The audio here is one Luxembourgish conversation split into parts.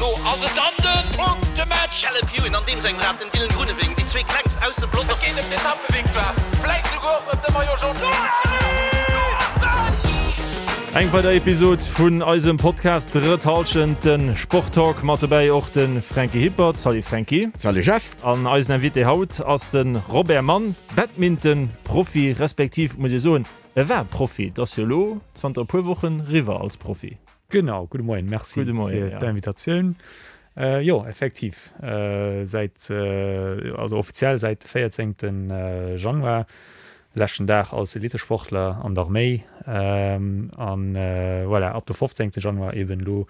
Elo ass et dann de Punktematch! Caleb Ewan an deem sengem Rad, den Dylan Groenewegen, déi zwee klengst aus dem Pelotong. Et geet ëm d'Etappevictoire, vläit souguer och ëm de Maillot Jaune. Eng weider Episod vun eisem Podcast Drëtt Hallschent, de Sporttalk. Mat dobäi och de Franky Hippert. Salut Franky. Salut Jeff. An eisen Invité haut ass de Robert Mann, Badminton-Profi, respektiv muss ee soen, e war Profi. Et ass jo elo zanter e puer Wochen riwwer als Profi. Genau, gudde Moien, merci fir d'Invitatioun. Jo, effektiv, säit, also offiziell säit de 14. Januar, leschten Dag als Elitesportler an der Arméi an voilà, ab de 15. Januar eben elo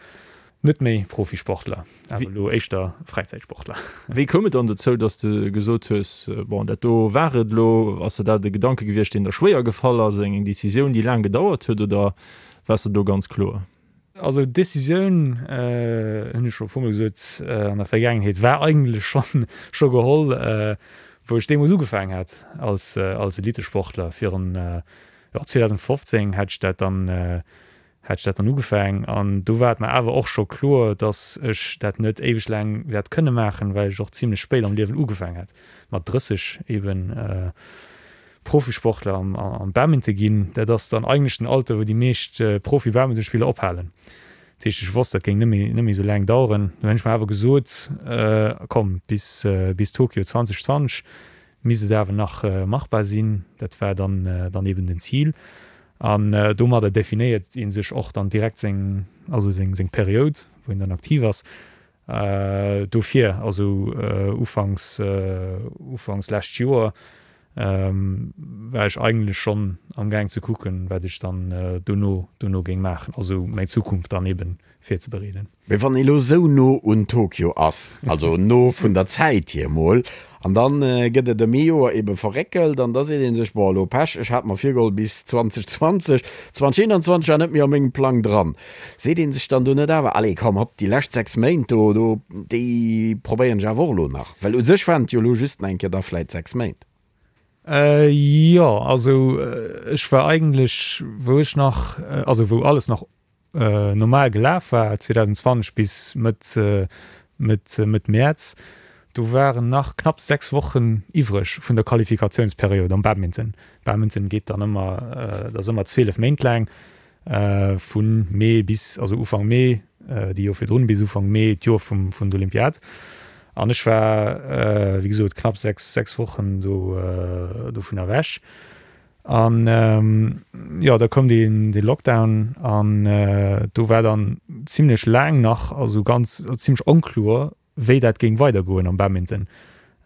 net méi Profisportler, awer elo éischter Fräizäitsportler. Wéi koum et dann dozou, dass de gesot hues, bon, dat do war et elo? Ass der dat e Gedanke gewiescht, deen der schwéier gefall ass, eng Decisioun, déi laang gedauert huet, oder Waars de do ganz kloer? Also d'Decisioun, hunn ech scho e puermol gesot an der Vergaangenheet, war eigentlech schonn scho geholl, wou ech deemools ugefaangen hat als als Elitesportler. Virun, jo, 2015 hat ech dat dann hat ech dat dann ugefaangen an do war et mer awer och scho kloer, datt ech dat net éiweg laang wäert kënne maachen, well ech och zimlech spéit am Liewen ugefaangen hat, mat 30 eben. Profisportler am Badminton ginn, dat ass dann eigentlech den Alter, wou déi meescht Profi-Badmintonspiller ophalen. Dat heescht, ech wosst, dat géing net méi, net méi esou laang daueren. Du hunn ech mer awer gesot, komm, bis, bis Tokio 2020 misst et awer nach machbar sinn. Dat war dann, dann eben den Zil. An domadder definéiert ee sech och dann direkt seng, also seng, seng Period, wou een dann aktiv ass. Dofir, also ufanks, ufanks lescht Joer, war ech eigentlech schonn am Gaang ze kucken, wat ech dann dono, dono géing maachen, also meng Zukunft dann eben virzebereeden. Mee wann ee lo sou no un Tokio ass, also no vun der Zäit hier mol, an dann gëtt et ëm ee Joer ebe verréckelt an da seet ee sech, bon elo Pech, ech hat mer virgeholl bis 2020, 2021 war net méi a mengem Plang dran. Seet ee sech dann do net awer, allez komm hopp, déi lescht 6 Méint do, do, déi probéieren ech awer och elo nach? Well u sech waren et jo elo just nach eng Kéier da vläit 6 Méint. Jo, also ech war eigentlech, wou ech nach, also wou alles nach normal gelaf war, 2020 bis Mëtt, Mëtt, Mëtt Mäerz, do waren nach knapps 6 Wochen iwwreg vun der Qualifikationsperiod am Badminton. Badminton geet dann ëmmer, dat ass ëmmer 12 Méint laang, vu Mee bis, also Ufank Mee, déi Joer virdrun, bis Ufank Mee d'Joer vum, vun der Olympiad. An ech war, wéi gesot, knapp 6, 6 Wochen do, dovun ewech. An jo, da koum dee, dee Lockdown an do war dann zimlech laang nach, also ganz, zimlech onkloer, wéi dat géing weidergoen am Badminton,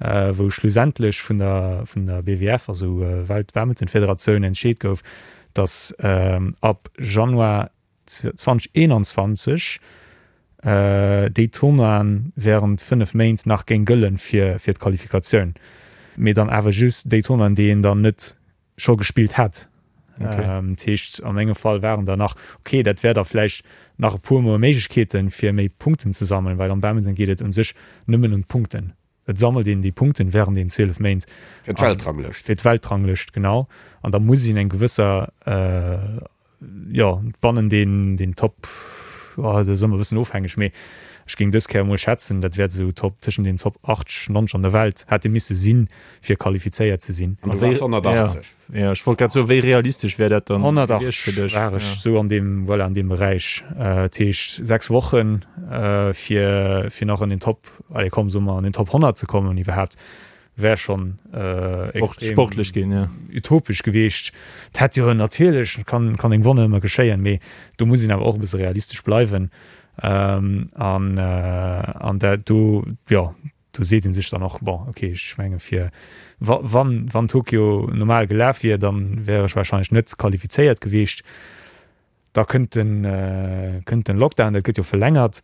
wou schlussendlech vun der vun der BWF, also Welt-Badminton-Federatioun, entscheet gouf, datt ab Januar 2021 déi Tournoien während 5 Méint nach géing gëllen fir fir d'Qualifikatioun, mee dann awer just déi Tournoien, déi een dann net scho gespillt hätt. Dat heescht, a mengem Fall waren der nach, okay, dat wär da vläicht nach e puer mol Méiglechkeeten, fir méi Punkten ze sammelen, well am Badminton geet et un sech nëmmen ëm d'Punkten. Et sammelt een déi Punkten während den 12 Méint. Fir d'Weltranglëscht. Fir d'Weltranglëscht, genau. An da muss een eng gewësser, jo, bannen den, den Top, oh, dat ass ëmmer e bëssen ofhängeg, mee ech géing dës Kéier emol schätzen, dat wäert esou Top, tëschent den Top 80, 90 an der Welt hätte misse sinn, fir qualifizéiert ze sinn. An du waars 180. Jo, ech wollt grad soen, wéi realistesch wär dat dann gewiescht fir dech? 180 war ech esou an deem, voilà, an deem Beräich. Dat heescht 6 Wochen, fir, fir nach an den Top, allez komm, soe mer an den Top 100 ze kommen iwwerhaapt, wär schonn extrem sportlech ginn, jo. Utopesch gewiescht. Et hätt jo natierlech, kann, kann eng Wonner ëmmer geschéien, mee do muss een awer och e bësse realistesch bleiwen. An, an dat do, jo, do seet ee sech dann och, bon, okay, ech menge fir wa wann wann Tokio normal gelaf wier, da wär ech wahrscheinlech net qualifizéiert gewiescht. Da kënnt den kënnt den Lockdown, dat gëtt jo verlängert,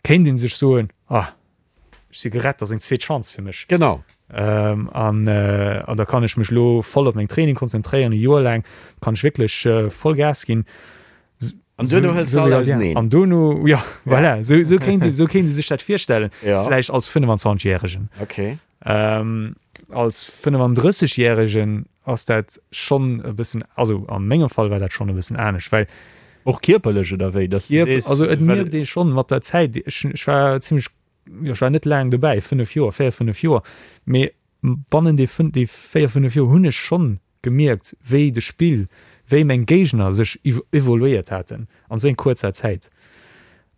kéint ee sech soen, ah, ech si gerett, dat ass eng zweet Chance fir mech. Genau. An an da kann ech mech elo voll op meng Training konzentréieren, e Joer laang kann ech wierklech voll Gas ginn. An duerno hëls de all auseneen. An duerno, jo, voilà, esou, esou kéint ee, esou kéint ee sech dat virstellen. Ja. Vläicht als 25 Järegen. Okay. Ähm, als 35 Järegen ass dat schonn e bëssen, also a mengem Fall war dat schonn e bëssen anescht, well. Och kierperlech oder wéi? Dass du sees, also et mierkt ee schonn mat der Zäit, ech ech war zimmlech, jo ech war net laang dobäi, 5 Joer, 4, 5 Joer, mee bannen déi déi 4, 5 Joer hunn ech schonn gemierkt, wéi de Spill, wéi meng Géigner sech evoluéiert haten an esou eng kuerzer Zäit.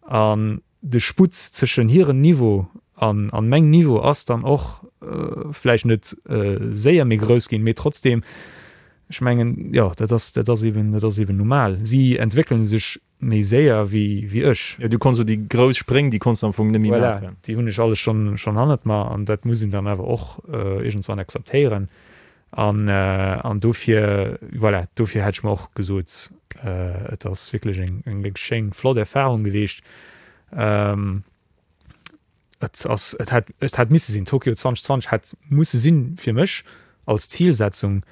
An de Sputt zwëschen hiren Niveau an an mengem Niveau ass dann och vläicht net séier méi grouss ginn, mee trotzdem, ech mengen, jo, dat ass, dat ass eben, dat ass eben normal. Si entwéckele sech méi séier wéi, wéi ech. Jo, du konns jo déi grouss Spréng, déi konns de am Fong net méi maachen. Voilà, déi hunn ech alles schonn, schonn hannert mer an dat muss een dann awer och iergendswann akzeptéieren. An, an dofir, voilà, dofir hätt ech mer och gesot, et ass wierklech eng, eng wierklech schéin, flott Erfahrung geweecht. Et ass, et hätt, et hätt misse sinn, Tokio 2020 hätt musse sinn fir mech als Zilsetzung,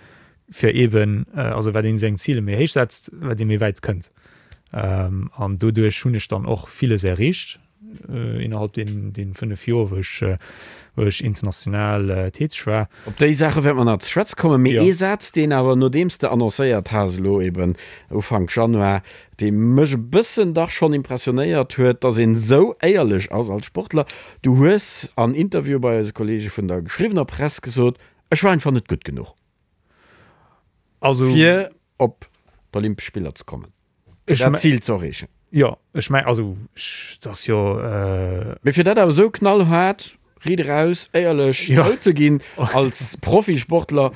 fir eeben, also wat ee seng Zile méi héich setzt, wat ee méi wäit kënnt. An doduerch hunn ech dann och villes erreecht innerhalb deenen, deenen 5 Joer, wou ech, wou ech international täteg war. Op déi Saache wäerte mer nach ze schwätze kommen. Mee ee Saz, deen awer, nodeems de annoncéiert has elo eeben Ufank Januar, dee mech e bëssen dach schonn impressionéiert huet, dass een esou éierlech ass als Sportler. Du hues an Interview bei eise Kollege vun der geschriwwener Press gesot, Ech war einfach net gutt genuch, Also, fir op d'Olympesch Spiller ze kommen, fir dat Zil ze erreechen. Jo, ech meng, also, ech, dat ass jo. Mee fir dat awer esou knallhaart Riit eraus, éierlech zouzeginn, als Profisportler,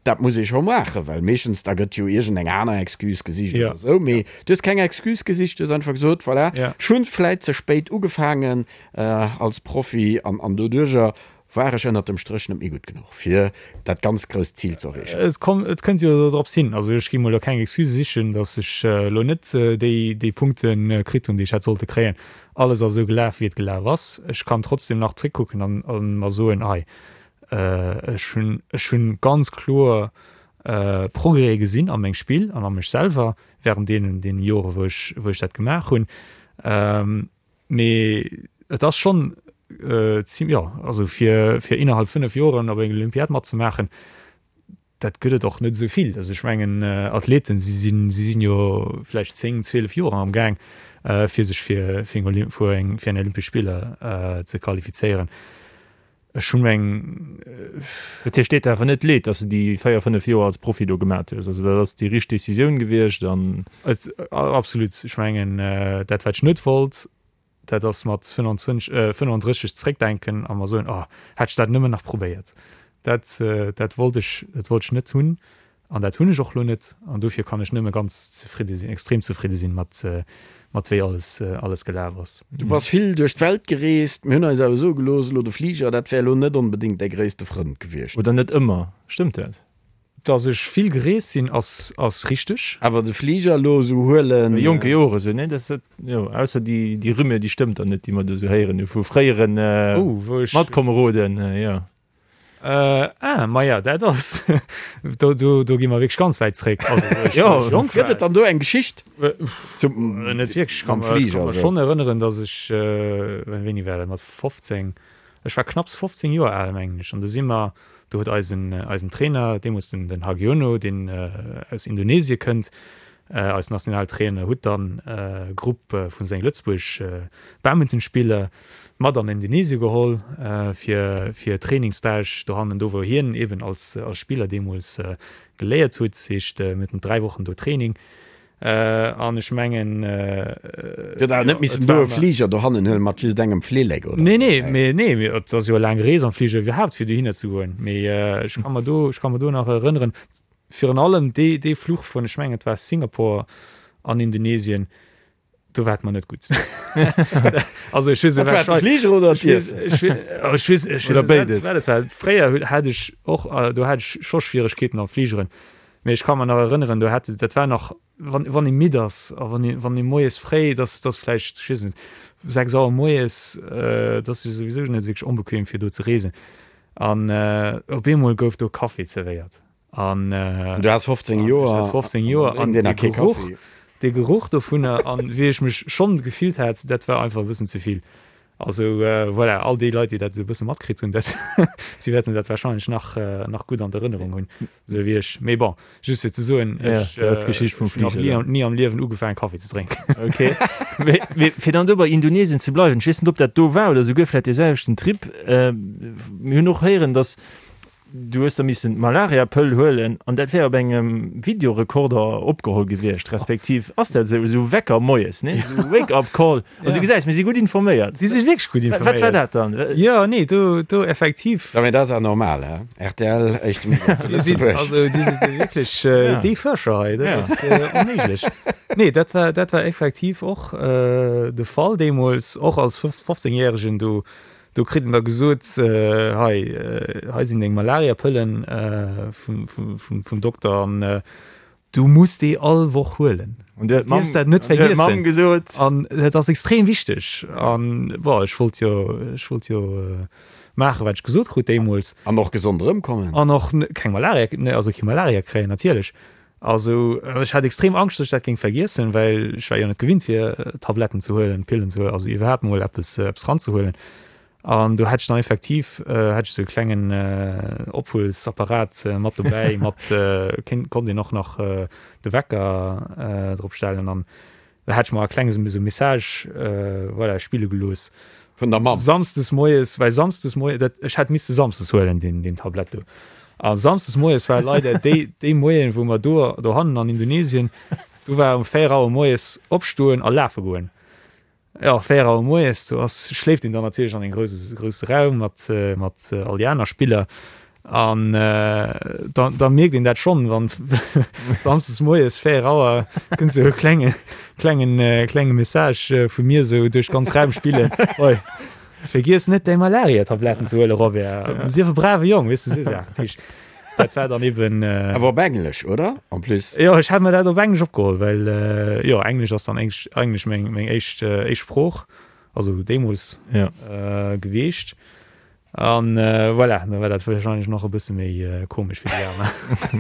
dat muss ee scho maachen, well meeschtens da gëtt jo iergendeng aner Excuse gesicht oder esou. Mee du hues keng Excuse gesicht, du hues einfach gesot, voilà, ech hunn vläit ze spéit ugefaangen als Profi an doduerjer war ech ënnert dem Stréch net méi gutt genuch, fir dat ganz grousst Zil ze erreechen. Et komm, et kënnt jo drops hin. Also ech gi mol elo keng Excuse sichen, datt ech elo net déi, déi Punkte kritt hunn, déi ech hätt sollte kréien. Alles ass esou gelaf, wéi et gelaf ass. Ech kann trotzdem nach zréckkucken an a mer soen, hei, ech hunn, ech hunn ganz kloer Progrèse gesinn a mengem Spill an a mech selwer während deenen, deenen Jore wou ech, wou ech dat gemaach hunn. Mee et ass schonn zim, jo, also fir, fir innerhalb 5 Joren op enger Olympiad matzemaachen, Dat gëtt et och net esou vill. Also ech mengen, Athleten, si sinn, si sinn jo vläicht 10, 12 Joer am Gaang, fir sech fir, fir eng Olymp, fir eng, fir eng Olympesch Spiller ze qualifizéieren. Ech hunn eng. Dat heescht, deet der awer net leed, datt s de déi 4, 5 Joer als Profi do gemat hues? Also dat ass déi richteg Decisioun gewiescht an. Et, absolut. Ech mengen, dat wat ech net wollt, Dat ass mat 25, 35 zréckdenken a mer soen, oh, hätt ech dat nëmmen nach probéiert. Dat, dat wollt ech, dat wollt ech net hunn an dat hunn ech och elo net. An dofir kann ech nëmme ganz zefridde sinn, extrem zefridde sinn mat, mat wéi alles, alles gelaf ass. Du bass vill duerch d'Welt gereest. Mir hunn eis awer soe gelooss, elo de Fliger, dat wär elo net onbedéngt däi gréisste Frënd gewiescht. Oder net ëmmer, stëmmt dat? Dass ech vill gereest sinn ass ass richteg. Awer de Fliger elo esou huelen. A jonke Jore sou, nee, dat dat jo, ausser déi déi Rumeur, déi stëmmt dann net, déi mer do sou héieren hu vu fréieren Matkomeroden, jo. Ah, maja, dat ass, do do do gi mer wierklech ganz wäit zréck. Also wou ech wou ech jonk war. Gëtt et dann do eng Geschicht? Net wierklech. Ech ka mer ech ka mer schonn erënneren, dass ech, wéini war dat, mat 15, ech war knapps 15 Joer al, mengen ech, an do si mer Do huet eisen eisen Trainer, deemools den den Hagiono, deen aus Indonesie kënnt, eis Nationaltrainer, hutt dann e Grupp vu senge Lëtzebuerg Badmintonspiller mat an Indonesie geholl fir fir Trainingsstage dohannen, do wou hien eben als als Spiller deemools geléiert hutt. Heescht mir haten 3 Wochen do Training. An ech mengen. Dir hutt awer net missen do e Fliger dohannen huelen mat just engem Flillek, oder? Nee, nee, mee nee, mee et ass jo e laang Rees am Fliger iwwerhaapt fir dohinner ze goen. Mee ech ka mer do, ech ka mer do nach erënneren, virun allem dee, dee Fluch vun, ech mengen et war Singapore an Indonesien, do war et mer net gutt. Also ech weess net, wat war de Fliger oder d'Iessen? Ech weess, ech weess Oder béides. wat et war. Fréier hat ech och, do hat ech scho Schwieregkeeten am Fligeren. Mee ech ka mer nach erënneren, do hat, dat war nach, wann, wann ee midd ass a wann ee, wann ee moies fréi, dass, dass vläicht, ech weess net, 6 Auer moies, dat ass jo souwisou net wierklech onbequem fir do ze reesen. An op eemol gouf do Kaffi zerwéiert. An du has 15 Joer. Ech hat 15 Joer an dee Geruch, dee Geruch dovunner an wéi ech mech schonn gefillt hat, dat war einfach e bëssen ze vill. Also voilà, all déi Leit, déi dat esou e bësse matkritt hunn, dat, si wäerten dat wahrscheinlech nach, nach gutt an d'Erënnerung hunn, esou wéi ech. Mee bon, just fir ze soen, ech hunn nach ni, ni am Liewen ugefaangen, Kaffi ze drénken. Ok. Mee, mee fir dann do bei Indonesien ze bleiwen, ech weess net, ob dat do war oder souguer vläicht dee selwechten Trip, mir hunn och héieren, datt Du hues da missen d'Malariapëll huelen an dat wär op engem Videorekorder opgeholl gewiescht, respektiv ass dat esou, esou Wecker moies, nee? Esou Wake-up Call. Also du gesäis, mir si gutt informéiert. Si si wierklech gutt informéiert. Wat war dat dann? Jo, nee, do, do effektiv. Jo, mee dat ass awer normal, he? Rtl, éischte Media zu Lëtzebuerg. Also Dir sidd jo wierklech déi Fuerscher hei, dat ass onméiglech. Nee, dat war, dat war effektiv och de Fall deemools, och als 15 Järegen do. Do kritt en da gesot, hei, hei sinn deng Malariapëllen vum Dokter an du muss déi all Woch huelen. An du dierfs dat net vergiessen. An dat ass extrem wichteg. An bon, ech wollt jo, ech wollt jo maachen, wat ech gesot krut deemools. An och gesond erëmkommen. An och keng Malaria, also kee Malaria kréien natierlech. Also ech hat extrem Angscht, dass ech dat géing vergiessen, well ech war jo net gewinnt fir Tabletten ze huelen, Pillen ze huelen, also iwwerhaapt mol eppes eppes ranzehuelen. An do hat ech dann effektiv hat ech sou e klengen Ophuelsapparat mat dobäi, mat kéint konnt een och nach de Wecker drop stellen an Da hat ech mer e klenge sou Message, voilà, spille gelooss. Vun der Mamm? Samsdes moies, well samsdes moies, dat, ech hätt misste samsdes huelen, deen, deen Tablett do. A samsdes moies war leider déi, déi Moien, wou mer do, dohannen an Indonesien, do war um 4 Auer moies opstoen a lafe goen. Jo, 4 Auer moies, do ass, schléift een dann natierlech an een grousse, grousse Raum mat, mat all déi aner Spiller. An da, da mierkt een dat schonn, wann samsdes moies 4 Auer kënnt sou e klenge, klengen, klenge Message vu mir sou duerch d'ganz Raum spillen, Oi, vergiess net däi Malaria-Tabletten ze huelen, Robert. Sief e brave Jong, weess de, sou Saachen. Dat heescht, dat war dann eben. Awer op Englesch, oder? En plus. Jo, ech hat mer dat op Englesch opgeholl, well jo, Englesch ass dann eigentlech meng, meng éischt, éischt Sprooch, also deemools gewiescht. An voilà, da war dat wahrscheinlech nach e bësse méi komesch fir déi aner.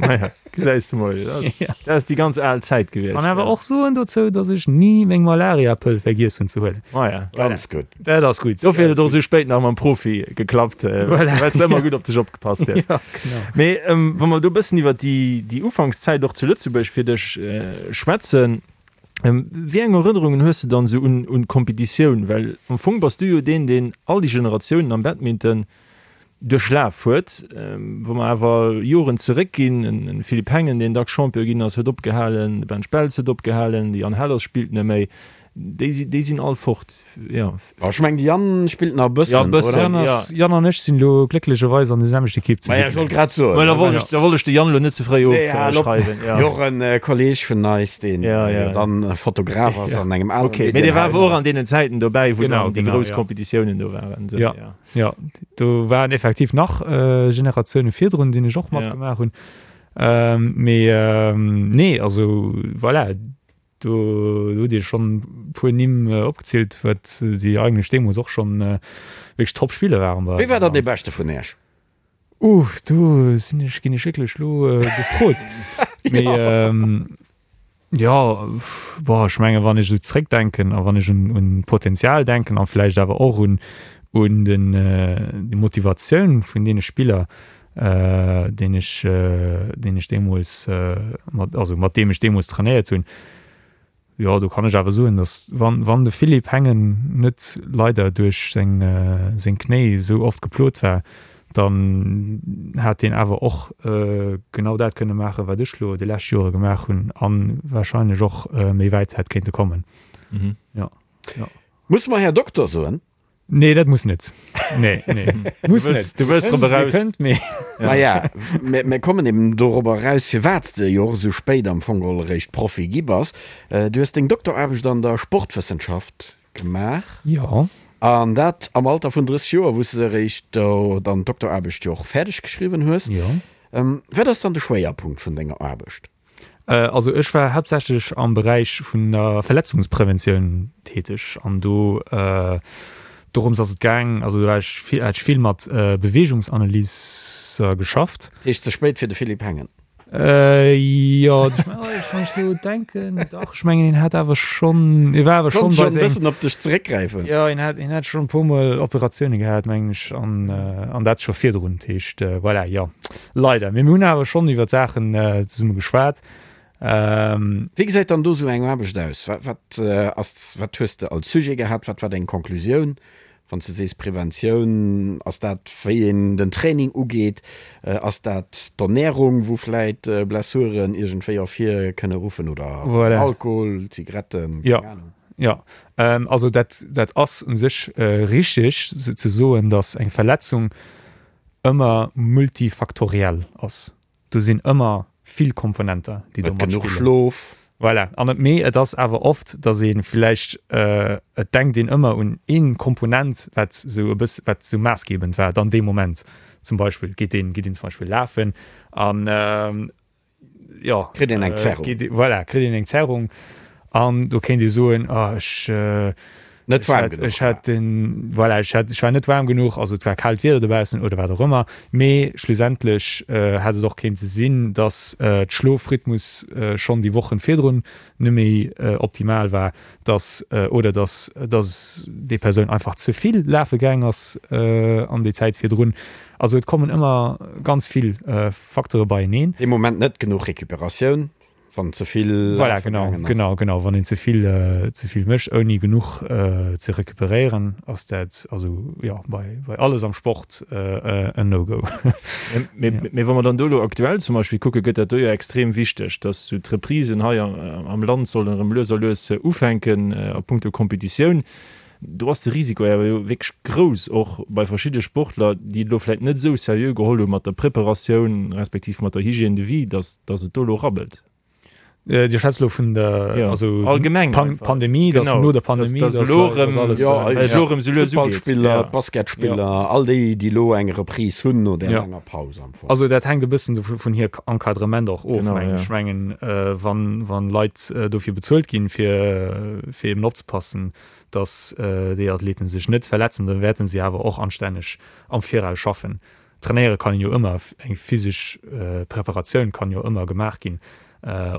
Naja, gesäis de mol, dat ass déi ganz al Zäit gewiescht. Kann awer och soen dozou, datt ech ni meng Malariapëll vergiess hunn ze huelen. Maja, ganz gutt. Dat ass gutt. Dofir huet et och esou spéit nach mam Profi geklappt, well s de ëmmer gutt op dech opgepasst hues. Ja, genau. Mee wa mer do e bëssen iwwer déi Ufankszäit och zu Lëtzebuerg fir dech schwätzen, Wéi eng Erënnerungen hues de dann esou un un d'Kompetitioun? Well am Fong bass du jo deen, deen all déi Generatiounen am Badminton duerchlaf huet. Wa mer awer Joren zeréckginn, en Philippe Hengen, deen dacks Champion ginn ass, huet opgehalen, de Ben Speltz huet opgehalen, de Yann Hellers spillt net méi. Déi si, déi sinn all fort, jo. Ech mengen, de Yann spillt nach e bëssen, Ja, e bëssen, oder? ja. Yann an ech sinn elo glécklecherweis an der selwechter Ekipp zu Ma ja, ech wollt grad soen. Mä da wollt ech, da wollt ech de Yann elo net ze fréi Nee, hal op. ofschreiwen, ja. Jo, och en Kolleeg vun eis, deen Ja, ja. jo dann Fotograf ass an engem anere Ok, mee dee war awer och an deenen Zäiten dobäi, wou Genau, dann déi genau, grouss ja. Kompetitiounen do waren, esou, Ja. ja. Ja, do waren effektiv nach Generatioune virdrun, déi ech och Ja. matgemaach hunn. Mee nee, also voilà. Do hutt Dir schonn e puer Nimm opgezielt, wat déi eigentlech deemools och schonn wierklech Top-Spiller waren bei Wie war eis am dann dee Land. Beschte vun Iech? Uh, do sinn ech, ginn ech wierklech elo gefrot. Mee jo, boah, ech menge wann ech esou zréckdenken a wann ech un un d'Potenzial denken a vläicht awer och un un den déi Motivatioun vun deene Spiller, deen ech, deen ech deemools mat, also mat deem ech deemools trainéiert hunn. Jo, do kann ech awer soen, datt wann, wann de Philippe Hengen net leider duerch seng, seng Knéi esou oft geplot war, dann hat deen awer och genau dat kënne maachen, wat ech lo déi lescht Jore gemaach hunn a warscheinlech och méi wäit hätt kéinte kommen. Jo, jo. Musse mer Här Dokter soen? Nee, dat muss net. Nee, nee. Muss net. Du wëlls drop eraus. Kënnt, mee. Maja, mir kommen eben dorobber eraus, firwat s de jo och esou spéit am Fong geholl eréischt Profi gi bass. Du hues deng Dokteraarbecht an der Sportwëssenschaft gemaach. Jo. An dat am Alter vun 30 Joer, wou s de eréischt do dann d'Dokteraarbecht jo och fäerdeg geschriwwen hues. Jo. Wat ass dann de Schwéierpunkt vun denger Aarbecht? Also ech war haaptsächlech am Beräich vun der Verletzungspreventioun täteg an do dorëms ass et gaang, also do war ech vill, hat ech vill mat Beweegungsanalyser geschafft. Dat heescht ze spéit fir de Philippe Hengen? Jo, ech. Wann ech elo denken, dach, ech mengen, hien hat awer schonn, hie war awer schonn bei seng. Konnt schonn e bëssen op dech zeréckgräifen. Jo, hien hat, hien hat schonn e puermol Operatioune gehat, mengen ech, an, an dat scho virdrun. Dat heescht, voilà, jo, leider. Mee mir hunn awer schonn iwwer d'Saachen zesumme geschwat. Wéi gesäit dann do esou eng Aarbecht aus? Wat, wat ass, wat hues de als Sujet gehat? Wat war deng Conclusioun? Wann s de sees Preventioun, ass dat wéi een den Training ugeet? Ass dat d'Ernärung, wou vläit Blessuren iergendwéi ervir kënne ruffen oder Alkohol, Zigaretten, keng Anung? Jo, also dat dat ass u sech richteg ze soen, datt eng Verletzung ëmmer multifaktoriell ass. Do sinn ëmmer vill Komponenter, déi do matspillen. Net genuch Schlof. Voilà. An et, mee et ass awer oft, datt ee vläicht, et denkt een ëmmer un ee Komponent, wat esou e bëss, wat esou maassgebend war dann dee Moment. Zum Beispill geet een, geet een zum Beispill lafen an, jo. Kritt een eng Zerrung. Voilà, kritt een eng Zerrung an do kéint ee soen, oh ech, Net waarm genuch Ech hat den, voilà, ech hat, ech war net waarm genuch, also et war kaalt Wieder dobaussen oder wat och ëmmer. Mee schlussendlech hätt et och kéinte sinn, dass d'Schlofrhythmus schonn déi Wochen virdrun net méi optimal war, dass oder dass dass déi Persoun einfach ze vill lafe gaang ass an déi Zäit virdrun. Also et kommen ëmmer ganz vill Facteure beieneen. Dee Moment net genuch Recuperatioun. Wann ze vill voilà, genau, ass. Genau, genau. Wann een ze vill, ze vill mécht, ouni genuch ze recuperéieren, ass dat also jo bei, bei alles am Sport en No-Go. Mee, mee wa mer dann do elo aktuell zum Beispill kucken, gëtt dat do jo extrem wichteg, dass sou d'Reprisen hei am Land sollen erëm lues a lues ufänken a punkto Competitioun. Do ass de Risiko awer jo wierklech grouss, och bei verschidde Sportler, déi et elo vläicht net esou seriö geholl hu mat der Preparatioun respektiv mat der Hygiène de vie, datt datt et do elo rabbelt. Dir schwätzt elo vun der, also allgemeng Pandemie, datt no der Pandemie, datt elo erëm, elo erëm esou lues ugeet. D'Futtballspiller, d'Basketspiller, all déi, déi elo eng Reprise hunn no där laanger Paus am Fong. Also dat hänkt e bëssen vun hir Encadrement och of, mengen ech. Ech mengen, wann Leit dofir bezuelt ginn, fir eben opzepassen, dass déi Athleten sech net verletzen, dann wäerten si awer och anstänneg am Viraus schaffen. Trainéiere kann een jo ëmmer, eng physesch Preparatioun kann jo ëmmer gemaach ginn,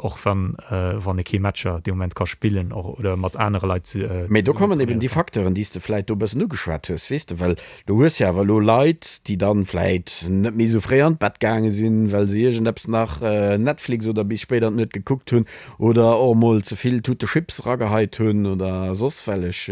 och wann wann ee kee Matcher dee Moment ka spillen oder mat anere Leit zesummen Mee do kommen eben déi Facteuren, déi s de vläit do e bëssen ugeschwat hues, weess de, well du hues jo awer elo Leit, déi dann vläit net méi esou fréi an d'Bett gaange sinn, well se iergendeppes nach Netflix oder bis spéit an d'Nuet gekuckt hunn Oder och emol ze vill Tute Chips erageheit hunn oder soss wellech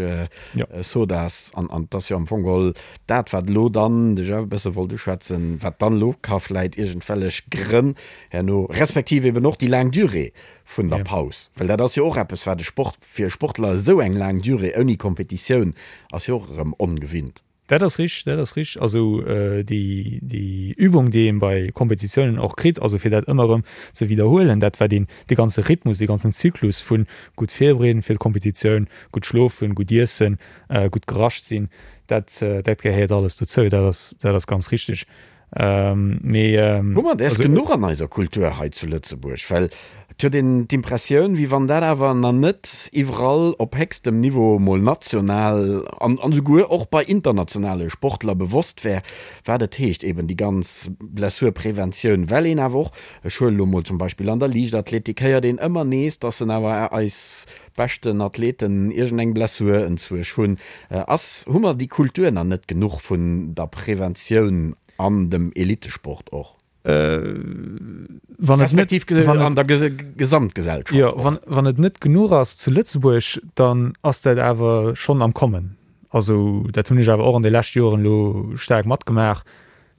Sodas. An et ass jo am Fong geholl dat, wat elo dann, de Jeff e bësse wollt uschwätzen, wat dann elo ka vläit iergendwellech Grënn herno, respektiv eben och déi laang Durée vun der Paus, well dat ass jo och eppes, wat e Sport, fir e Sportler esou eng laang Durée ouni Kompetitioun ass jo och erëm ongewinnt. Dat ass richteg, dat ass richteg. Also déi, déi Übung, déi een bei Kompetitiounen och kritt, also fir dat ëmmer erëm ze widderhuelen, dat wat een, dee ganze Rhythmus, dee ganzen Zyklus vu gutt virbereeden fir d'Kompetitioun, gutt schlofen, gutt iessen, gutt gerascht sinn, dat, dat gehéiert alles dozou. Dat ass, dat ass ganz richteg. Mee Hu mer däers genuch an eiser Kultur hei zu Lëtzebuerg? Well et huet een d'Impressioun, wéi wann dat awer nach net iwwerall op héchstem Niveau, mol national an esouguer och bei internationale Sportler bewosst wär, wat et heescht, eben déi ganz Blessurpreventioun. Well een awer och, ech huelen elo mol zum Beispill an der Liichtathletik héiert een ëmmer nees, dass en awer eis beschten Athleten iergendeng Blessur enzwuesch hunn. Ass, hu mer déi Kultur nach net genuch vun der Preventioun an dem Elitesport och? Wann et net, Respektiv an der Gesamtgesellschaft och? Jo, wann et net genuch ass zu Lëtzebuerg, dann ass dat awer schonn am Kommen. Also dat hunn ech awer och an de leschte Joren elo staark matgemaach.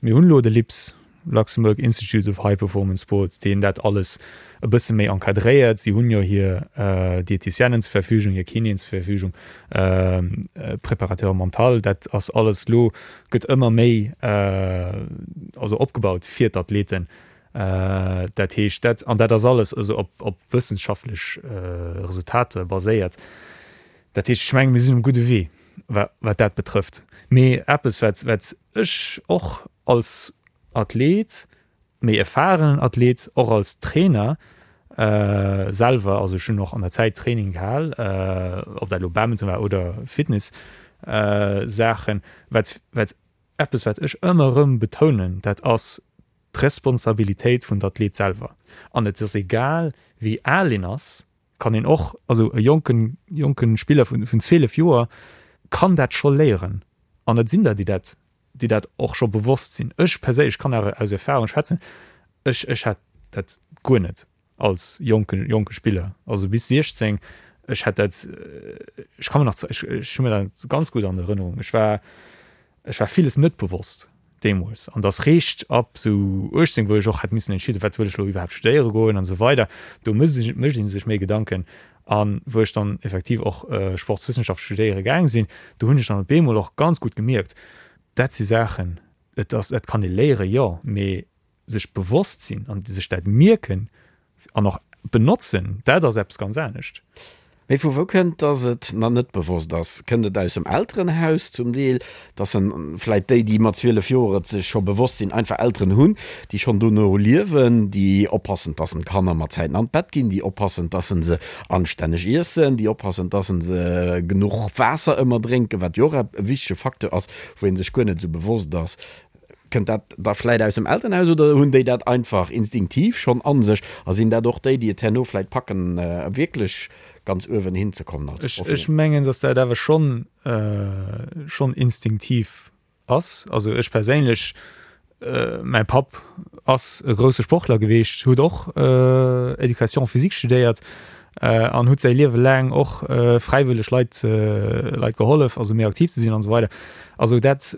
Mir hunn elo de LIPS, Luxembourg Institute of High Performance Sport, deen dat alles e bësse méi encadréiert. Si hunn jo hir Diététicienen zur Verfügung, hir Kinéen zur Verfügung, Préparateur mental, dat ass alles elo, gëtt ëmmer méi also opgebaut fir d'Athleten. Dat heescht, dat, an dat ass alles also op, op wëssenschaftlech Resultater baséiert. Dat heescht, ech menge mir sinn um gudde Wee, wat dat betrëfft. Mee eppes, wat, wat ech och als Athlet, méi erfahrenen Athlet, och als Trainer selwer, also ech hunn och an der Zäit Training gehal, ob dat elo Badminton war oder Fitness Saachen, wat, wat eppes wat ech ëmmer erëm betounen, dat ass. d'Responsabilitéit vun der Athlet selwer. An et ass egal, wéi al een ass, kann een och, also e jonken, jonke Spiller vun, vun 12 Joer kann dat scho léieren. An et sinn der, déi dat, déi dat och scho bewosst sinn. Ech perséinlech kann awer aus Erfahrung schwätzen, ech, ech hat dat guer net als jonke, jonke Spiller, also bis 16, ech hat dat, ech ka mer nach, ech, ech hu mir dat ganz gutt an Erënnerung, ech war, Ech war villes net bewosst deemools an dass réischt ab sou 18, wou ech och hätt missen entscheeden, wat wëll ech elo iwwerhaapt studéiere goen an esou weider, do mécht ee sech méi Gedanken. A wou ech dann effektiv och Sportswëssenschaft studéiere gaang sinn, do hunn ech dann op eemol och ganz gutt gemierkt, dat si Saachen, et ass, dat kann ee léieren, jo, mee sech bewosst sinn an sech dat mierken an och benotzen, dat ass eppes ganz anescht. Mee vu wou kënnt, dass et nach net bewosst ass? Kënnt et aus dem Elterenhaus zum Deel, dass en vläit déi, déi mat 12 Joer et sech scho bewosst sinn, einfach Elteren hunn, déi schonn dono liewen, déi oppassen, dass en d'Kanner mat Zäiten an d'Bett ginn, déi oppassen, dass en se anstänneg iessen, déi oppassen, dass en se genuch Waasser ëmmer drénken, wat jo och e wichtege Facteur ass, wou ee sech guer net esou bewosst ass. Kënnt dat da vläit aus dem Elternhaus oder hunn déi dat einfach instinktiv schonn a sech a sinn dat och déi, déi et herno vläit packen, wierklech ganz uewen hinzekommen als Profi? Ech mengen, datt dat awer schonn, schonn instinktiv ass. Also ech perséinlech, mäi Papp ass e grousse Sportler geweecht, huet och Éducation physique studéiert an huet säi Liewe laang och fräiwëlleg Leit, Leit gehollef, also méi aktiv ze sinn an esou weider. Also dat,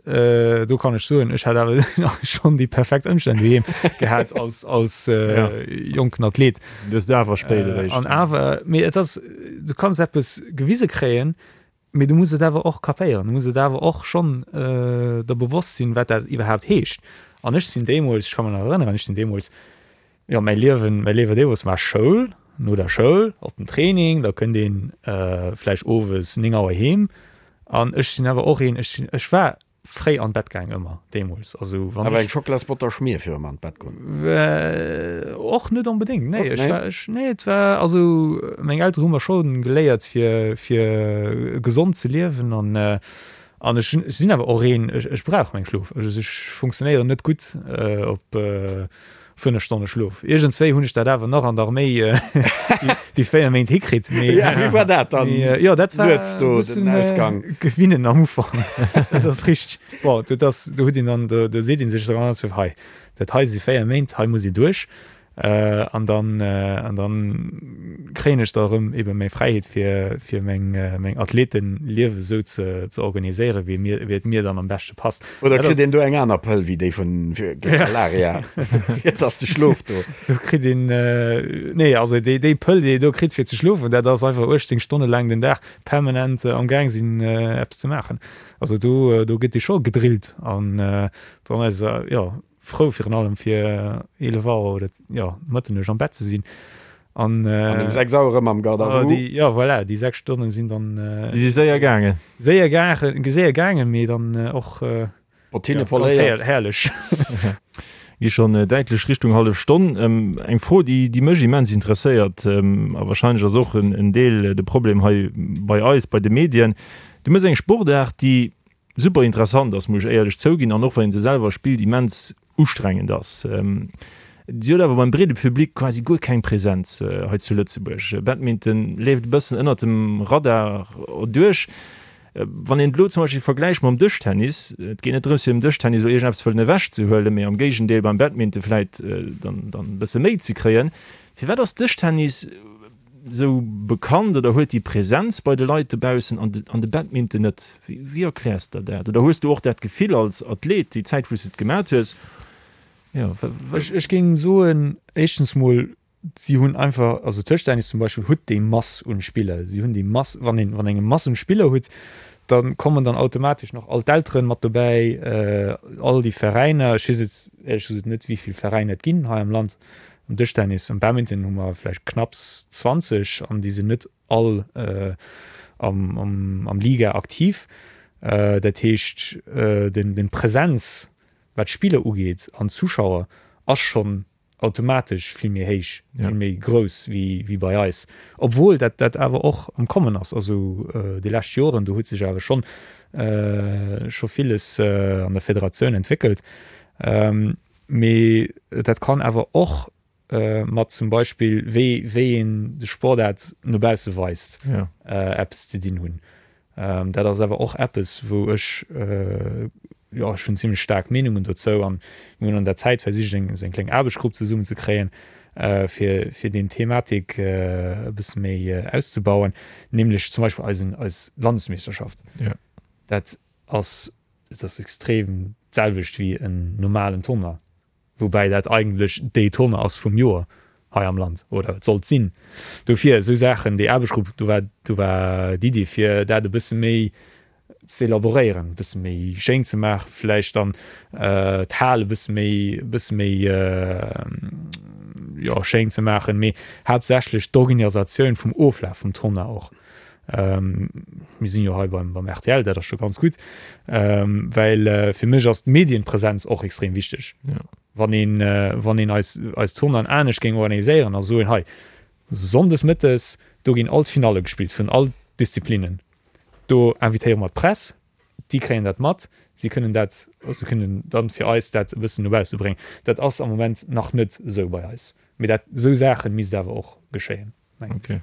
do kann ech soen, ech hat awer schonn déi perfekt Ëmstänn doheem gehat als, als jonken Athlet. Du hues et awer spéit eréischt. An awer, mee et ass, du kanns eppes gewise kréien, mee du muss et awer och kapéieren, du muss et awer och schonn der bewosst sinn, wat dat iwwerhaapt heescht. An ech sinn deemools, ech ka mech nach erënneren, ech sinn deemools, Jo, mäi Liewen, mäi Liewe deemools war Schoul, no der Schoul op den Training, da kënnt een vläicht owes 9 Auer heem. An ech sinn awer och een, ech sinn, ech war fréi an d'Bett gaang ëmmer deemools. Also wann Awer ech. Eng Schocklasbotter Schmier virum an d'Bett goen? Och net onbedéngt, nee. Ech war, ech, nee, et war, also meng Eltere hu mer scho geléiert fir, fir gesond ze liewen an, an ech hunn, ech sinn awer och een, ech, ech brauch meng Schlof. Also ech funktionéieren net gutt op 5 Stonne Schlof. Iergendswéi hunn ech dat awer nach an der Arméi déi 4 Méint hikritt. Mee, ja, wéi war dat dann? Mee, jo, dat war Nuets do den Ausgang. Gewinnen am Ufank. Dat ass richteg. Bon, dat ass, do huet een dann, do seet ee sech dann alles, hei, dat hei si 4 Méint, hei muss ee duerch. An dann, an dann kréien ech da erëm ebe meng Fräiheet fir, fir meng, meng Athletenliewe sou ze, ze organiséieren, wéi mir, wéi et mir dann am beschte passt. Oder kritt een do eng aner Pëll wéi déi vun géint Malaria? Et ass de Schlof do. Do kritt een, nee, also déi, déi Pëll, déi ee do kritt fir ze schlofen, dat ass einfach 18 Stonne laang den Dag permanent am Gaang sinn eppes ze maachen. Also do, do gëtt ee scho gedrillt an dann ass, jo, frou virun allem fir 11 Auer oder jo Mëtternuecht am Bett ze sinn an An um 6 Auer erëm am Garde à vous. Déi, jo voilà, déi 6 Stonnen sinn dann Déi si séier gaangen. Séier gaangen, séier gaangen, mee dann och Bottine poléiert. Herrlech. Gi schonn däitlech Richtung hallef Stonn. Eng Fro, déi déi mech immens interesséiert, a wahrscheinlech ass och en Deel de Problem hei bei eis, bei de Medien, Du méchs eng Sportaart, déi super interessant ass, muss ech éierlech zouginn, an och wann een se selwer spillt, immens ustrengend ass. Si huet awer beim breede Public quasi guer keng Präsenz hei zu Lëtzebuerg. Badminton leeft e bëssen ënnert dem Radar duerch. Wann een et elo zum Beispill vergläicht mam Dëschtennis, et geet net drëms fir dem Dëschtennis elo iergendeppes wëllen ewechzehuelen, mee am Géigendeel beim Badminton vläit dann e bësse méi ze kréien. Firwat ass Dëschtennis esou bekannt oder huet déi Präsenz bei de Leit dobaussen an de, an de Badminton net? Wéi erkläers de der dat? Oder hues du och dat Gefill als Athlet déi Zäit wou s de et gemat hues? Jo, Ech, ech géing soen, éischtens mol, si hunn einfach, also Dëschtennis zum Beispill huet déi Mass un Spiller, si hunn déi Mass, wann een, wann eng Mass un Spiller hutt, da kommen dann automatesch nach all d'Elteren mat dobäi, all déi Veräiner, ech weess et éierlech gesot net, wéi vill Veräiner et ginn hei am Land, Am Dëschtennis, am Badminton hu mer vläicht knapps 20 an déi sinn net all am Liga aktiv. Dat heescht, den Präsenz, wat d'Spiller ugeet an d'Zuschauer, ass schonn automatesch vill méi héich, vill méi grouss wéi bei eis. Obwuel dat dat awer och am Kommen ass. Also déi lescht Joren, do huet sech awer schonn scho villes an der Federatioun entwéckelt. Mee dat kann awer och mat zum Beispill wéi wéi een de Sportaart no bausse weist eppes ze dinn hunn. Dat ass awer och eppes wou ech, jo ech hunn zimlech staark Meenungen dozou an mir hunn an der Zäit versicht eng esou eng kleng Aarbechtsgrupp zesummen ze kréien fir fir deen Thematik e bësse méi auszebauen, nämlech zum Beispill eisen eis Landesmeeschterschaft. Dat ass dat ass extrem d'selwecht wéi en normalen Tournoi. Woubäi dat eigentlech déi Tournée ass vum Joer hei am Land, oder et sollt sinn. Dofir esou Saachen, déi Aarbechtsgrupp, do war, do war d'Iddi fir dat e bësse méi z'elaboréieren, e bësse méi schéin ze maachen, vläicht dann d'Hal e bësse méi, e bësse méi, jo, schéin ze maachen, mee haaptsächlech d'Organisatioun vum Oflaf vum Tournoi och. Mir sinn jo hei beim, beim rtl, dat ass scho ganz gutt, well fir mech ass d'Medienpräsenz och extrem wichteg. Ja. Wann een, wann een eis, eis Tournoien anescht géing organiséieren a soen, hei, sonndes mëttes, do ginn all d'Finalle gespillt vun all Disziplinen, do invitéiere mer d'Press, déi kréien dat mat, si kënnen dat, se kënnen dann fir eis dat e bëssen no bausse bréngen. Dat ass am Moment nach net esou bei eis, mee dat, esou Saache misst awer och geschéien. Okay.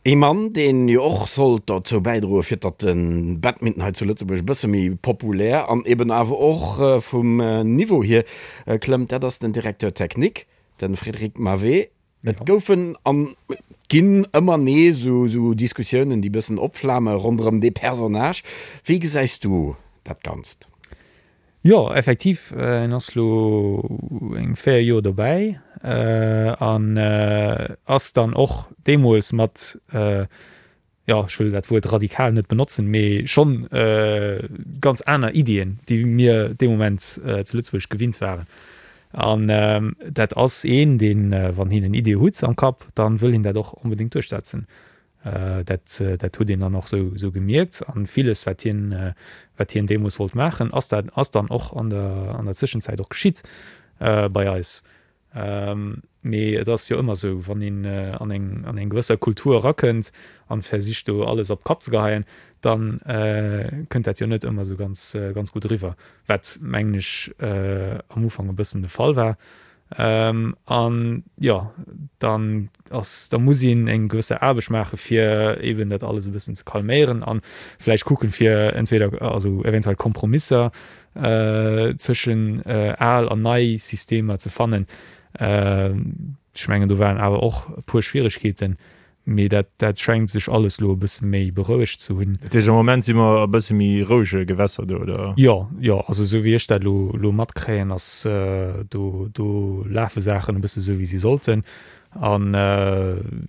Ee Mann, deen jo och sollt dozou bäidroe fir datt de Badminton hei zu Lëtzebuerg e bësse méi populär an eben awer och vum Niveau hier klëmmt, dat ass den Directeur technique, de Frédéric Mavé. Et goufen an ginn ëmmer nees esou Diskussiounen, déi bëssen opflame ronderëm dee Personnage. Wéi gesäis du dat Ganzt? Jo, effektiv, en ass lo eng 4 Joer dobäi an ass dann och deemools mat, jo, ech wëll dat Wuert radikal net benotzen, mee schonn ganz aner Iddien, déi mir dee Moment zu Lëtzebuerg gewinnt waren. An dat ass een, deen, wann hien en Idee hutt am Kapp, dann wëll hien dat och onbedéngt duerchsetzen. Dat, dat huet een dann och esou, esou gemierkt. An villes, wat hien, wat hien deemools wollt maachen, ass dat, ass dann och an der, an der Zwischenzäit och geschitt bei eis. Mee et ass jo ëmmer esou, wann een an eng, an eng gewësser Kultur erakënnt an versicht do alles op d'Kap ze geheien, dann kënnt dat jo net ëmmer esou ganz, ganz gutt eriwwer, wat mengen ech am Ufank e bëssen de Fall war. An jo, dann ass, da muss een eng gewësse Aarbecht maache fir eben dat alles e bëssen ze calméieren an vläicht kucken, fir entweder, also eventuell Kompromisser zwëschen al an nei Systemer ze fannen. Ech mengen, do waren awer och e puer Schwieregkeeten, Mee dat, dat schengt sech alles lo e bësse méi berouegt ze hunn. Dat heescht, am Moment si mer a bësse méi rouege Gewässer do, oder? Jo, jo. Also esou wéi ech dat lo, lo matkréien, ass do, do lafe Saachen e bësse sou wéi si sollten. An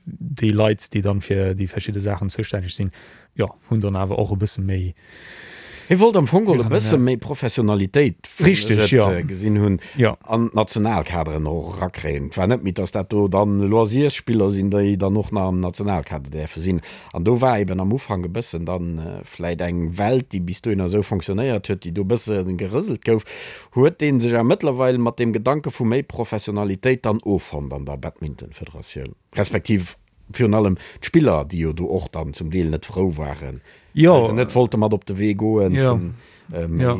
déi Leit, déi dann fir déi verschidde Saachen zoustänneg sinn, jo, hunn dann awer och e bësse méi. Hie wollt am Fong geholl e bësse méi Professionalitéit, wéi ech et gesinn hunn, an d'Nationalkaderen och erakréien. Et war net méi, datt dat do dann Loisirsspiller sinn, déi dann och nach am Nationalkader däerfe sinn. An do war eben am Ufank e bëssen dann vläit eng Welt, déi bis dohinner esou fonctionnéiert huet, déi do e bësse gerëselt gouf. Huet dee sech awer mëttlerweil mat deem Gedanke vu méi Professionalitéit dann offonnt an der Badmintonfederatioun, respektiv Virun allem d'Spiller, déi jo do och dann zum Deel net frou waren, well se net wollte mat op de Wee goen vun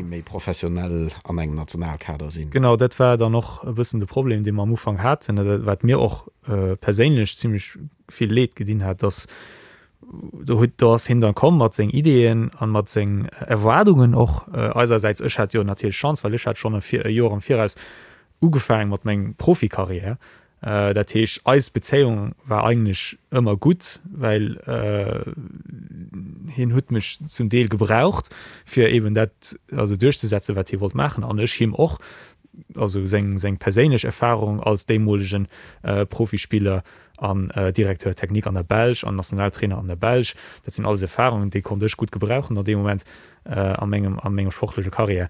méi professionell an engem Nationalkader sinn. Genau, dat war dann och e bëssen de Problem, dee mer am Ufank haten, wat mir och perséinlech zimlech vill Leed gedinn hat, dass do huet, do ass hien dann komm mat seng Ideeën an mat seng Erwaardungen och eisersäits. Ech hat jo natierlech Chance, well ech hat schonn e Joer am Viraus ugefaangen mat mengem Profikarriär. Dat heescht, eis Bezéiung war eigentlech ëmmer gutt, well hien huet mech zum Deel gebraucht, fir eben dat also duerchzesetzen, wat hie wollt maachen, an ech him och, also seng seng perséinlech Erfahrung als deemolegen Profispiller an Directeur technique an der Belsch an Nationaltrainer an der Belsch, dat sinn alles Erfahrungen, déi konnt ech gutt gebrauchen an deem Moment a mengem a mengem sportleche Karriär.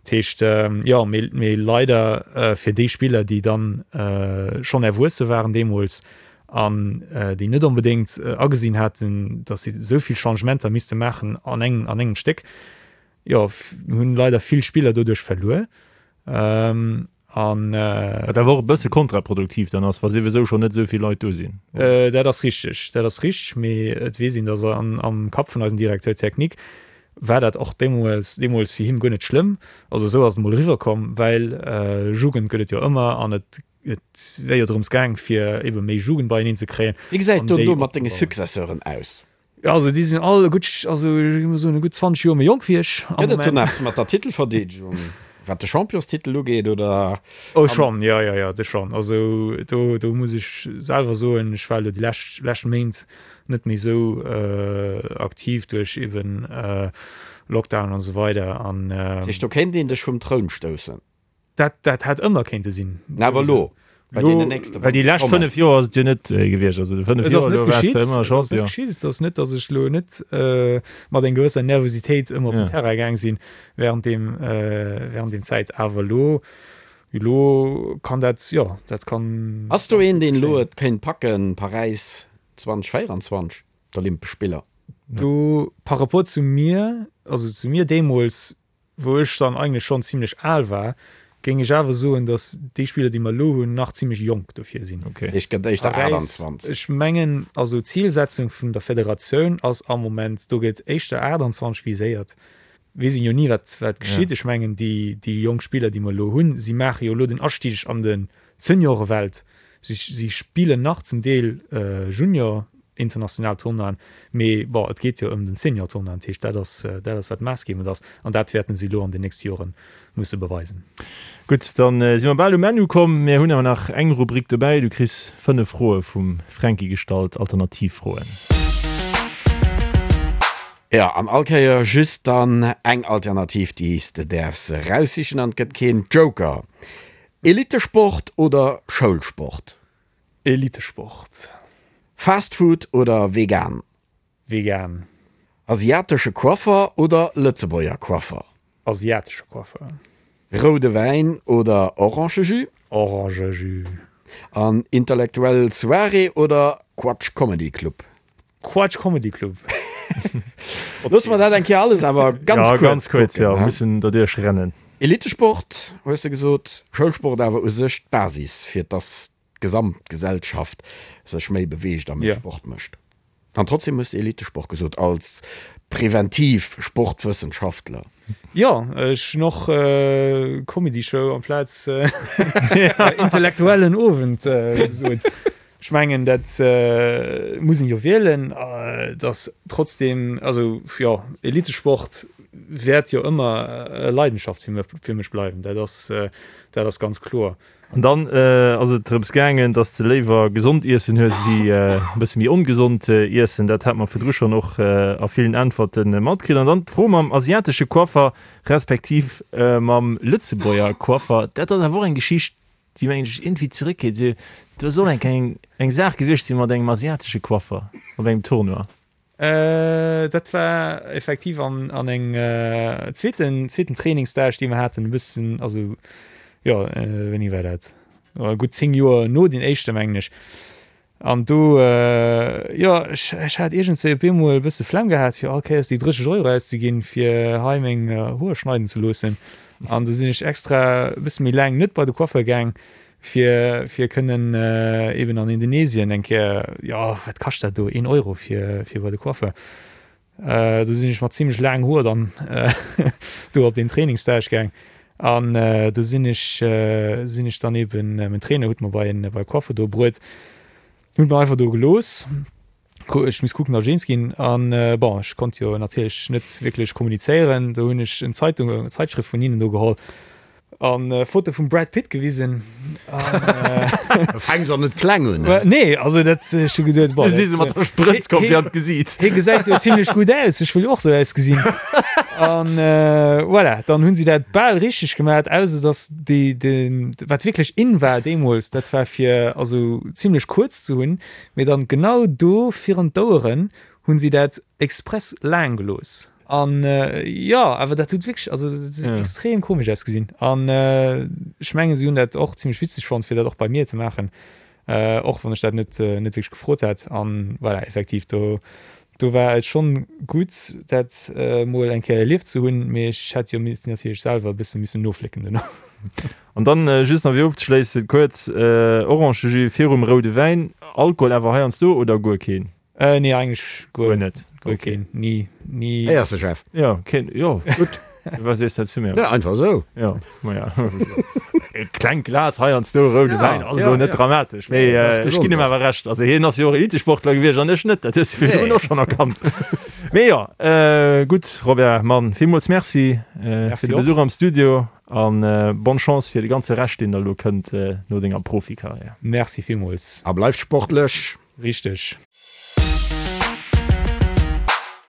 Dat heescht, jo, mee leider fir déi Spiller, déi dann schonn erwuesse waren deemools an déi net onbedéngt agesinn haten, datt si esou vill Changementer misste maachen an engem, an engem Stéck, jo, hunn leider vill Spiller doduerch verluer. An. Wat awer och e bësse kontraproduktiv dann ass, wa souwisou schonn net esou vill Leit do sinn. Dat ass richteg, dat ass richteg, mee et weess een, datt am Kapp vun eisem Directeur technique. War dat och deemools deemools fir him guer net schlëmm. Also esou ass et mol eriwwer komm, well Jugend gëtt et jo ëmmer an et et wär jo drëms gaang fir ebe méi Jugend beieneen ze kréien Wéi gesäit et do mat denge Successeuren aus? Jo, also déi sinn all e gutt, also ech géif mol soen, e gutt 20 Joer méi jonk wéi ech am Gëtt et do Moment. nach mat der Titelverdeedegung, wat de Championstitel ugeet, oder? Oh schonn, jo, jo, jo, de schonn. Also do, do muss ech selwer soen, ech war elo déi lescht, lescht Méint net méi esou aktiv duerch eben Lockdown an esou weider an. Dat heescht, do kéint een dech vum Troun stoussen? Dat, dat hätt ëmmer kéinte sinn. Na, awer elo, bei deenen nächste, Well déi lescht 5 Joer ass et jo net gewiescht. Also de 5 Et ass Joer net elo waars geschitt, de ëmmer et ass net Champion. geschitt. Et ass net, datt ech elo net mat eng gewësser Nervositéit ëmmer op den Ja. Terrain gaang sinn während deem, während deem Zäit. Awer elo, elo kann dat, jo, dat kann Ass do ganz een, gutt deen elo geschéien. et kéint packen, Paräis 2024, d'Olympesch Spiller? Do, par rapport zu mir, also zu mir deemools, Wou ech dann eigentlech schonn zimlech al war, géing ech awer soen, datt déi Spiller, déi mer elo hunn, nach zimlech jonk dofir sinn. Dat heescht, gëtt éischter Paräis, 28. ech mengen, also d'Zilsetzung vun der Federatioun ass am Moment, do gëtt éischter 28 viséiert. Weess een jo ni, wat wat geschitt. Ech mengen, déi déi jonk Spiller, déi mer elo hunn, si maache jo elo den Astig an de Seniorewelt. Si si spillen nach zum Deel Junior international Tournoien, mee bon, et geet jo ëm den Senior Tournoi, dat heescht dat ass dat ass wat maassgebend ass an dat wäerten si elo an den nächste Jore musse beweisen. Gutt, dann si mer bal um Enn ukomm. Mir hunn awer nach eng Rubrik dobäi. Du kriss 5 Froe vum Fränki gestallt, Alternativfroen. Jo, an all Kéier just dann eng Alternativ, déi s de däerfs eraussichen an et gëtt keen Joker. Elitesport oder Schoulsport? Elitesport. Fast Food oder vegan? Vegan. Asiatesche Coiffer oder Lëtzebuerger Coiffer? Asiatesche Coiffer. Roude Wäin oder Orangejus? Orangejus. An intellektuell Soirée oder Quatsch Comedy Club? Quatsch Comedy Club. Loosse mer dat eng Kéier alles awer ganz Ja, kuerz ganz kuerz, kucken, jo, he? mussen derduerch rennen. Elitesport, hues de gesot, Schoulsport awer u sech d'Basis, fir dass d'gesamt Gesellschaft sech méi beweegt a méi Ja. Sport mécht. An trotzdem hues de Elitesport gesot, als präventiv Sportwëssenschaftler. Jo, ech hunn och Comedy Show amplaz intellektuellen Owend gesot. Ech mengen, dat muss een jo wielen, dass trotzdem, also jo, Elitesport wäert jo ëmmer e Leidenschaft fir mech bleiwen, dat ass, dat ass ganz kloer. An dann ass et drëms gaangen, dass de léiwer gesond Iessen hues wéi e bësse méi ongesond Iessen. Dat hat mer virdru schonn och a villen Äntwerte matkritt. An dann d'Fro mam asiatesche Coiffer respektiv mam Lëtzebuerger Coiffer, dat ass awer och eng Geschicht, déi mengen ech iergendwéi zeréckgeet. Se, do soll eng eng eng Saach gewiescht sinn mat engem asiatesche Coiffer op engem Tournoi. Dat war effektiv an an eng zweeten zweeten Trainingsstage, dee mer haten, e bëssen, also jo, wéini war dat? Gutt 10 Joer no deem éischte mengen ech. An do, jo, ech, ech hat iergendswéi op eemol e bësse Flemm gehat, fir all Kéiers déi 30 Euro auszeginn, fir hei meng Hoer schneiden ze loossen. An du sinn ech extra e bësse méi laang net bei de Coiffeur gaang, fir, fir kënnen eben an Indonesien eng Kéier, jo, wat kascht dat do, een Euro fir, fir bei de Coiffeur. Do sinn ech mat zimlech laangen Hoer dann do op deen Trainingsstage gaang an do sinn ech sinn ech dann eben, mäin Trainer huet mer bei en bei e Coiffer do bruet, hunn mer einfach do gelooss, ech misst kucken datt ech eens ginn an bon ech konnt jo natierlech net wierklech kommunizéieren, do hunn ech en Zeitung eng Zeitschrëft vun hinnen do geholl An Foto vum Brad Pitt gewisen. Da fänks och net kleng un, ne? Nee, also dat ech hu gesot, Du si se mat der Sprëtz komm fir an d'Gesiit. Hie gesäit jo zimlech gutt aus, ech wëll jo och sou ausgesinn. An voilà, dann hunn si dat bal richteg gemat, ausser datt déi, den, wat wierklech in war deemools, dat war fir also zimlech kuerz ze hunn, mee dann genau do virun d'Oueren hunn si dat express laang gelooss. An jo, awer dat huet wierklech, also dat huet extrem komesch ausgesinn. An ech mengen, si hunn dat och zimlech witzeg fonnt, fir dat och bei mir ze maachen, och wann ech dat net net wierklech gefrot hat. An voilà, effektiv, do do war et schonn gutt, dat mol eng Kéier erlieft ze hunn, mee ech hätt jo missen natierlech selwer e bësse missen noflécken duerno. An dann just nach fir ofzeschléissen, kuerz, Orangejus virum roude Wäin, Alkohol awer heiansdo oder guer keen? Nee, eigentlech guer Guer net. Guer keen. Ni, ni. Héiers de, Jeff? Jo, keen, jo, gutt. Wat sees dat zu mir? Ja, einfach esou. Jo, ma ja. E klengt Glas heiansdo roude Ja, Wäin ass elo ja, net ja. dramatesch, mee Nee, dat ass ech gesond ginn him och. awer Recht. Also hien ass jo och Elitesportler gewiescht an ech net, dat hues de virdrun Nee. och schonn erkannt. Mee jo, gutt, Robert, Mann, villmools Merci fir Merci de och. Besuch am Studio an bonne Chance fir de ganze Rescht, deen da elo kënnt no denger Profikarriär. Merci villmools. A bleift sportlech. Richteg.